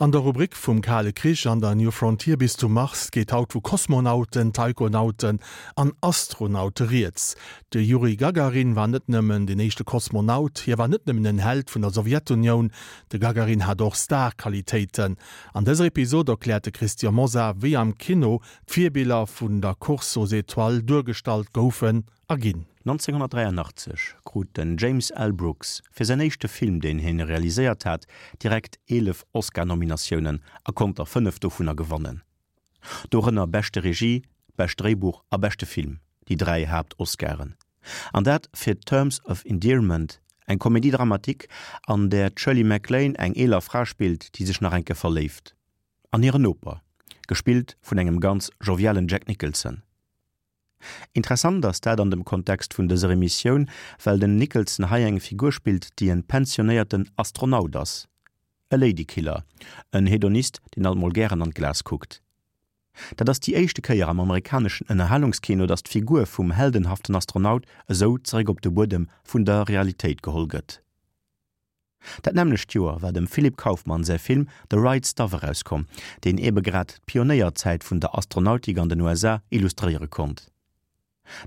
An der Rubrik vum Kale Krich an der New Frontier bis zum Mars geet haut vu Kosmonauten, Taikonauten an Astronaute rieds. De Juri Gagarin war net nëmmen den éischte Kosmonaut, hie war net nëmmen en Held vun der Sowjetunioun, de Gagarin hat och Star-Qualitéiten. An dëser Episod erkläert de Christian Mosar, wéi am Kino d'Virbiller vun der Course aux étoiles duergestallt goufen a ginn. 1983 krut den James L. Brooks fir säin éischte Film, deen hien realiséiert hat, direkt 11 Oscar-Nominatiounen a konnt der 5 dovunner gewannen. Dorënner beschte Regie, bescht Dréibuch a beschte Film, déi 3 Haapt-Oscaren. An dat fir Terms of Endearment, eng Comédie dramatique, an där d'Shirley MacLaine eng eeler Fra spillt, déi sech nach eng Kéier verléift. An hiren Noper, gespillt vun engem ganz jovialen Jack Nicholson. Interessant ass dat an dem Kontext vun dëser Emissioun, well den Nicholson hei eng Figur spillt, déi en pensionéierten Astronaut ass, e Ladykiller, en Hedonist, deen alt mol gären an d'Glas kuckt. Dat ass déi éischte Kéier am amerikaneschen Ënnerhalungskino, datt d'Figur vum heldenhaften Astronaut esou zeréck op de Buedem vun der Realitéit geholl gëtt. Dat nämmlecht Joer war dem Philip Kaufman säi Film The Right Stuff erauskomm, deen ebe grad d'Pionéierzäit vun der Astronautik an den USA illustréiere konnt.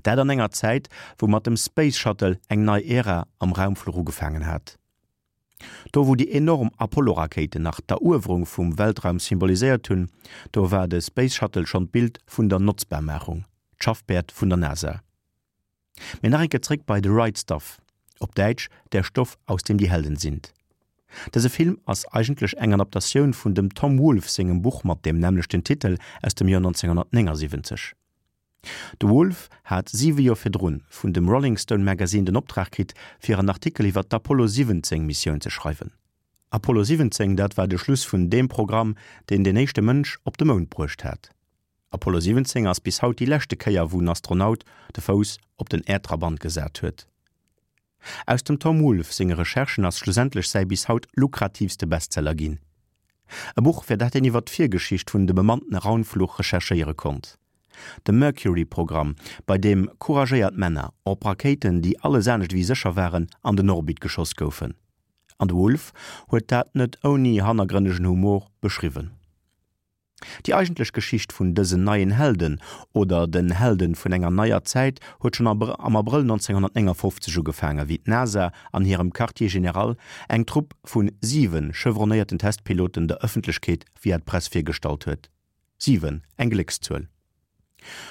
Dat an enger Zäit, wou mat dem Space Shuttle eng nei Ära am Raumfluch ugefaangen hat. Do wou déi enorm Apollo-Rakéiten nach d'Eruewerung vum Weltraum symboliséiert hunn, do war de Space Shuttle schonn d'Bild vun der Notzbarmaachung, d'Schaffpäerd vun der NASA. Mee nach eng Kéier zréck bei The Right Stuff, op Däitsch Der Stoff, aus dem die Helden sind. Dëse Film ass eigentlech eng Adaptatioun vun dem Tom Wolfe sengem Buch mat deem nämmlechten Titel aus dem Joer 1979. De Wolfe hat siwe Joer virdrun vun dem Rolling Stone Magazine den Optrag kritt, fir en Artikel iwwer d'Apollo 17 Missioun ze schreiwen. Apollo 17, dat war de Schluss vun deem Programm, deen den éischte Mënsch op de Mound bruecht hat. Apollo 17 ass bis haut déi leschte Kéier wou en Astronaut de Fouss op den Äerdtrabant gesat huet. Aus dem Tom Wolfe senge Recherchen ass schlussendlech säi bis haut lukratiivste Bestseller ginn. E Buch fir dat een iwwer d'Virgeschicht vun de bemannten Raunfluch recherchéiere konnt. De Mercury-Programm, bei deem couragéiert Männer op Rakéiten déi alles anescht ewéi sécher waren an den Orbit geschoss goufen. An de Wolfe huet dat net ouni hannergrënnegen Humor beschriwwen. Déi eigentlech Geschicht vun dësen neien Helden, oder den Helden vun enger neier Zäit, huet schonn am Abrëll 1959 ugefaangen, wéi d'NASA an hirem Quartier général eng Trupp vu siwe chevronnéierten Testpiloten der Ëffentlechkeet via d'Press virgestallt huet. Siwen, eng Gléckszuel.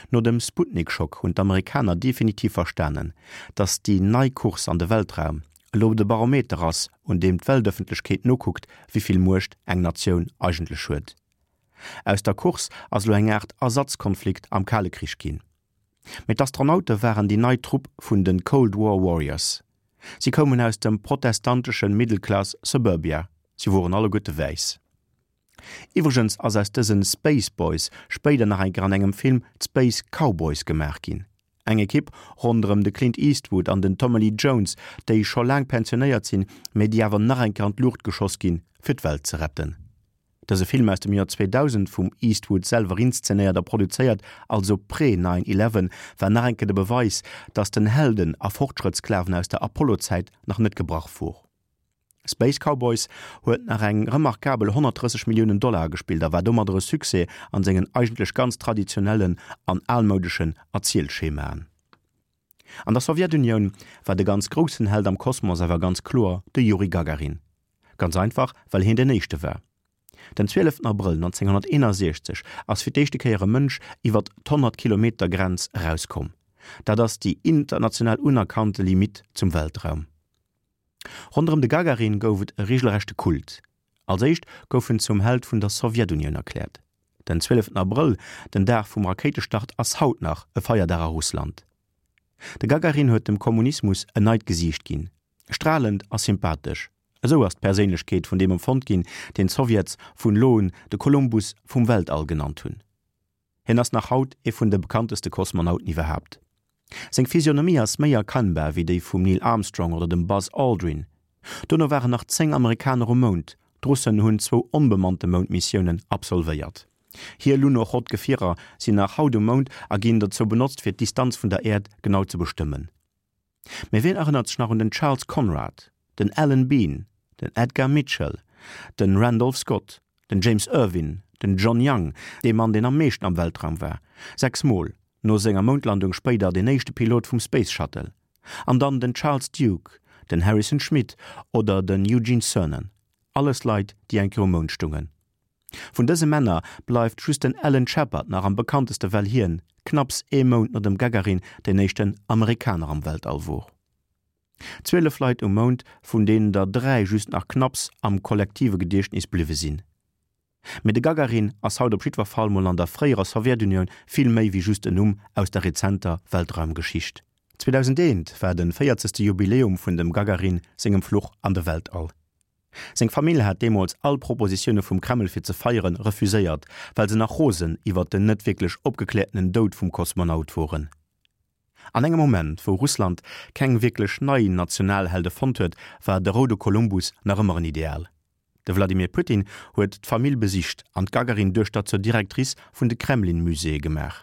No dem Sputnik-Schock hunn d'Amerikaner definitiv verstanen, datt déi nei Course an de Weltraum elo de Barometer ass, un deem d'Weltëffentlechkeet nokuckt, wéi vill Muecht eng Natioun eigentlech huet. Aus der Course ass elo eng Aart Ersatzkonflikt am Kale Krich ginn. Mee d'Astronaute waren déi nei Trupp vun de Cold War Warriors. Si koumen aus dem protestantesche Middle-Class Suburbia, si woren alleguerte wäiss. Iwwregens ass aus dësen Space Boys spéider nach eng Kéier an engem Film d'Space Cowboys gemaach ginn. Eng Ekipp ronderëm de Clint Eastwood an den Tommy Lee Jones, déi scho laang pensionéiert sinn, mee déi awer nach eng Kéier an d'Luucht geschoss ginn, fir d'Welt ze retten. Dëse Film aus dem Joer 2000, vum Eastwood selwer inszenéiert a produzéiert, also pré Nine Eleven, war nach eng Kéier de Beweis, dass den Helden a Fortschrëttsklaven aus der Apollo-Zäit nach net gebrach wor. Space Cowboys huet nach eng remarkabel 130 Milliounen Dollar agespillt a war domadder e Succès an sengen eigentlech ganz traditionellen an almoudeschen Erzielschemaen. An der Sowjetunioun war de ganz groussen Held am Kosmos awer ganz kloer de Juri Gagarin. Ganz einfach, well hien den éischte war. Den 12 Abrëll 1961 ass fir d'éischte Kéier e Mënsch iwwer d'Honnert Kilometer Grenz erauskomm. Dat ass déi international unerkannte Limitt zum Weltraum. Ronderëm de Gagarin gouf et e reegelrechte Kult. Als éischt gouf en zum Held vun der Sowjetunioun erkläert. Den 12 Abrëll, den Dag vum Rakéitestart, ass haut nach e Feierdag a Russland. De Gagarin huet dem Kommunismus en neit Gesiicht ginn, stralend a sympathesch. Esou ass d'Perséinlechkeet vun deem empfonnt ginn, deen d'Sowjets vun elo un de Kolumbus vum Weltall genannt hunn. Hien ass nach haut ee vun de bekannteste Kosmonauten iwwerhaapt. Seng Physionomie ass méi erkennbar wéi déi vum Neil Armstrong oder dem Buzz Aldrin. Dono waren nach 10 Amerikaner um Mound, d'Russen hunn zwou onbemannte Moundmissiounen absolvéiert. Hir Lunochod-Gefierer sinn nach haut um Mound a ginn dozou benotzt fir d'Distanz vun der Äerd genau ze bestëmmen. Mee wien erënnert sech nach un den Charles Conrad, den Alan Bean, den Edgar Mitchell, den Randolph Scott? Den James Irwin, den John Young, dee Mann deen am meeschten am Weltraum war, 6 mol, no senger Moundlandung spéider deen éischte Pilot vum Space Shuttle, an dann den Charles Duke, den Harrison Schmitt oder den Eugene Cernan, alles Leit déi eng Kéier um Mound stungen. Vun dëse Männer bleift just den Alan Shepard nach am bekannteste well hien, knapps ee Mount no dem Gagarin, deen éischten Amerikaner am Weltall wor. 12 Leit um Mound, vun deenen der 3 just nach knapps am kollektive Gediechtnis bliwwe sinn. Mee de Gagarin ass haut op jiddwer Fall mol an der fréierer Sowjetunioun vill méi wéi just en Numm aus der rezenter Weltraumgeschicht. 2001 war de 40. Jubiläum vun dem Gagarin sengem Fluch an de Weltall. Seng Famill hat deemools all Propositioune vum Kreml fir ze feieren refuséiert, well se nach rosen iwwert den net wierklech opgekläertenen Doud vum Kosmonaut woren. An engem Moment, wou Russland keng wierklech nei Nationalhelde fonnt huet, war de roude Kolumbus nach ëmmer en Ideal. De Wladimir Putin huet d'Famill besicht an d'Gagarin-Duechter zur Directrice vun de Kremlin-Muséeë gemaach.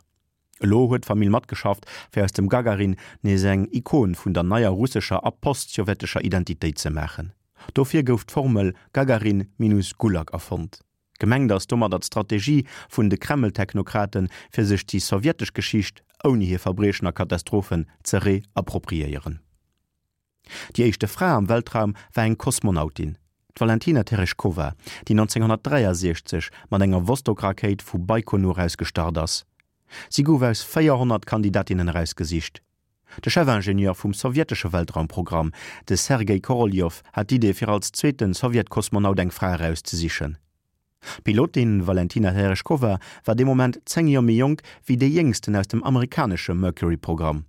Elo huet d'Famill matgeschafft, fir aus dem Gagarin nees eng Ikon vun der neier russescher a postsowjetescher Identitéit ze maachen. Dofir gouf d'Formel Gagarin minus Gulag erfonnt. Gemengt ass domadder d'Strategie vun de Kreml-Technokraten, fir sech déi sowjetesch Geschicht ouni hir Verbriechen a Katastrophen ze reappropriéieren. Déi éischte Fra am Weltraum war eng Kosmonautin, d'Valentina Tereshkova, déi 1963 mat enger Vostok-Rakéit vu Baikonur aus gestart ass. Si gouf aus 400 Kandidatinnen erausgesicht. De Chefingenieur vum sowjetesche Weltraumprogramm, de Sergei Koroljow, hat d'Idee fir als zweete Sowjetkosmonaut eng Fra erauszesichen. D'Pilotin Valentina Tereschkowa war dee Moment 10 Joer méi jonk wéi déi jéngsten aus dem amerikanesche Mercury-Programm.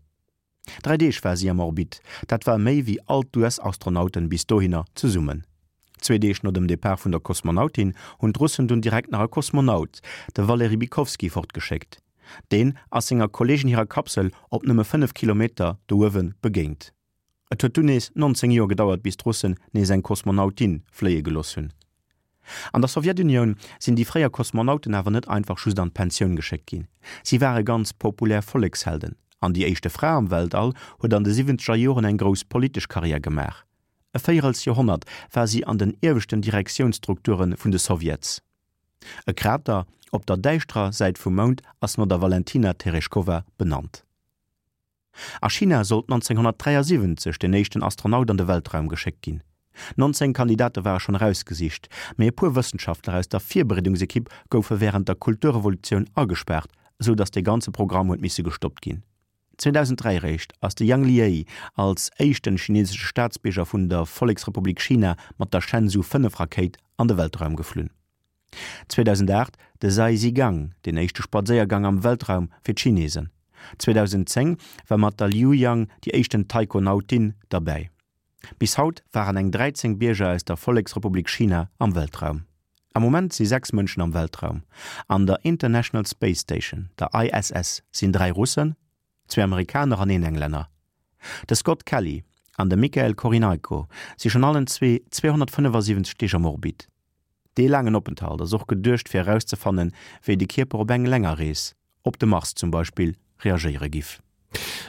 Dräi Deeg war si am Orbit, dat war méi wéi all d'US-Astronauten bis dohinner zesummen. Zwee Deeg no dem Depart vun der Kosmonautin hunn d'Russen dunn direkt nach e Kosmonaut, de Waleri Bykowski, fortgeschéckt. Deen ass senger Kolleegin hirer Kapsel op nëmme 5 Kilometer do uewe begéint. Et huet dunn nees 19 Joer gedauert, bis d'Russen nees eng Kosmonautin fléie gelooss hunn. An der Sowjetunioun sinn déi fréier Kosmonauten awer net einfach just an d'Pensioun geschéckt ginn. Si ware ganz populär Vollekshelden an déi éischte Fra am Weltall huet an de siwwenzeger Joren eng grouss politesch Karriär gemaach. E véierels Joerhonnert war si an den ieweschten Direktiounsstrukture vun de Sowjets. E Krater op der däischterer Säit vum Mound ass no der Valentina Tereschkowa benannt. A China sollt 1973 den éischten Astronaut an de Weltraum geschéckt ginn. 19 Kandidate ware schonn erausgesicht, mee e puer Wëssenschaftler aus der Virbereedungsekipp goufe wärend der Kulturrevolutioun agespaart, esou datt dee ganze Programm huet misse gestoppt ginn. 2003 eréischt ass de Yang Liei als éischten chinesesche Staatsbierger vun der Volleksrepublik China mat der Shenzhou 5 Rakéit an de Weltraum geflunn. 2008 de Zhai Zhigang, deen éischte Spadséiergang am Weltraum fir d'Chinesen. 2010 war mat der Liu Yang déi éischten Taikonautin derbäi. Bis haut waren eng 13 Bierger aus der Volleksrepublik China am Weltraum. Am Moment si 6 Mënschen am Weltraum. An der International Space Station, der ISS, sinn 3 Russen, zwee Amerikaner an een Englänner. De Scott Kelly an de Michael Korynaiko si schonn allen zwee 275 Deeg am Orbit. Dee laangen Openthalt ass och geduecht fir erauszefannen, wéi de Kierper op eng länger Rees, op de Mars zum Beispill, reagéiere giff.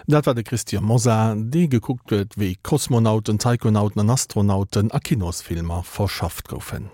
Dat war de Christian Mosar, dee gekuckt huet, wéi Kosmonauten, Taikonauten an Astronauten a Kinosfilmer verschafft goufen.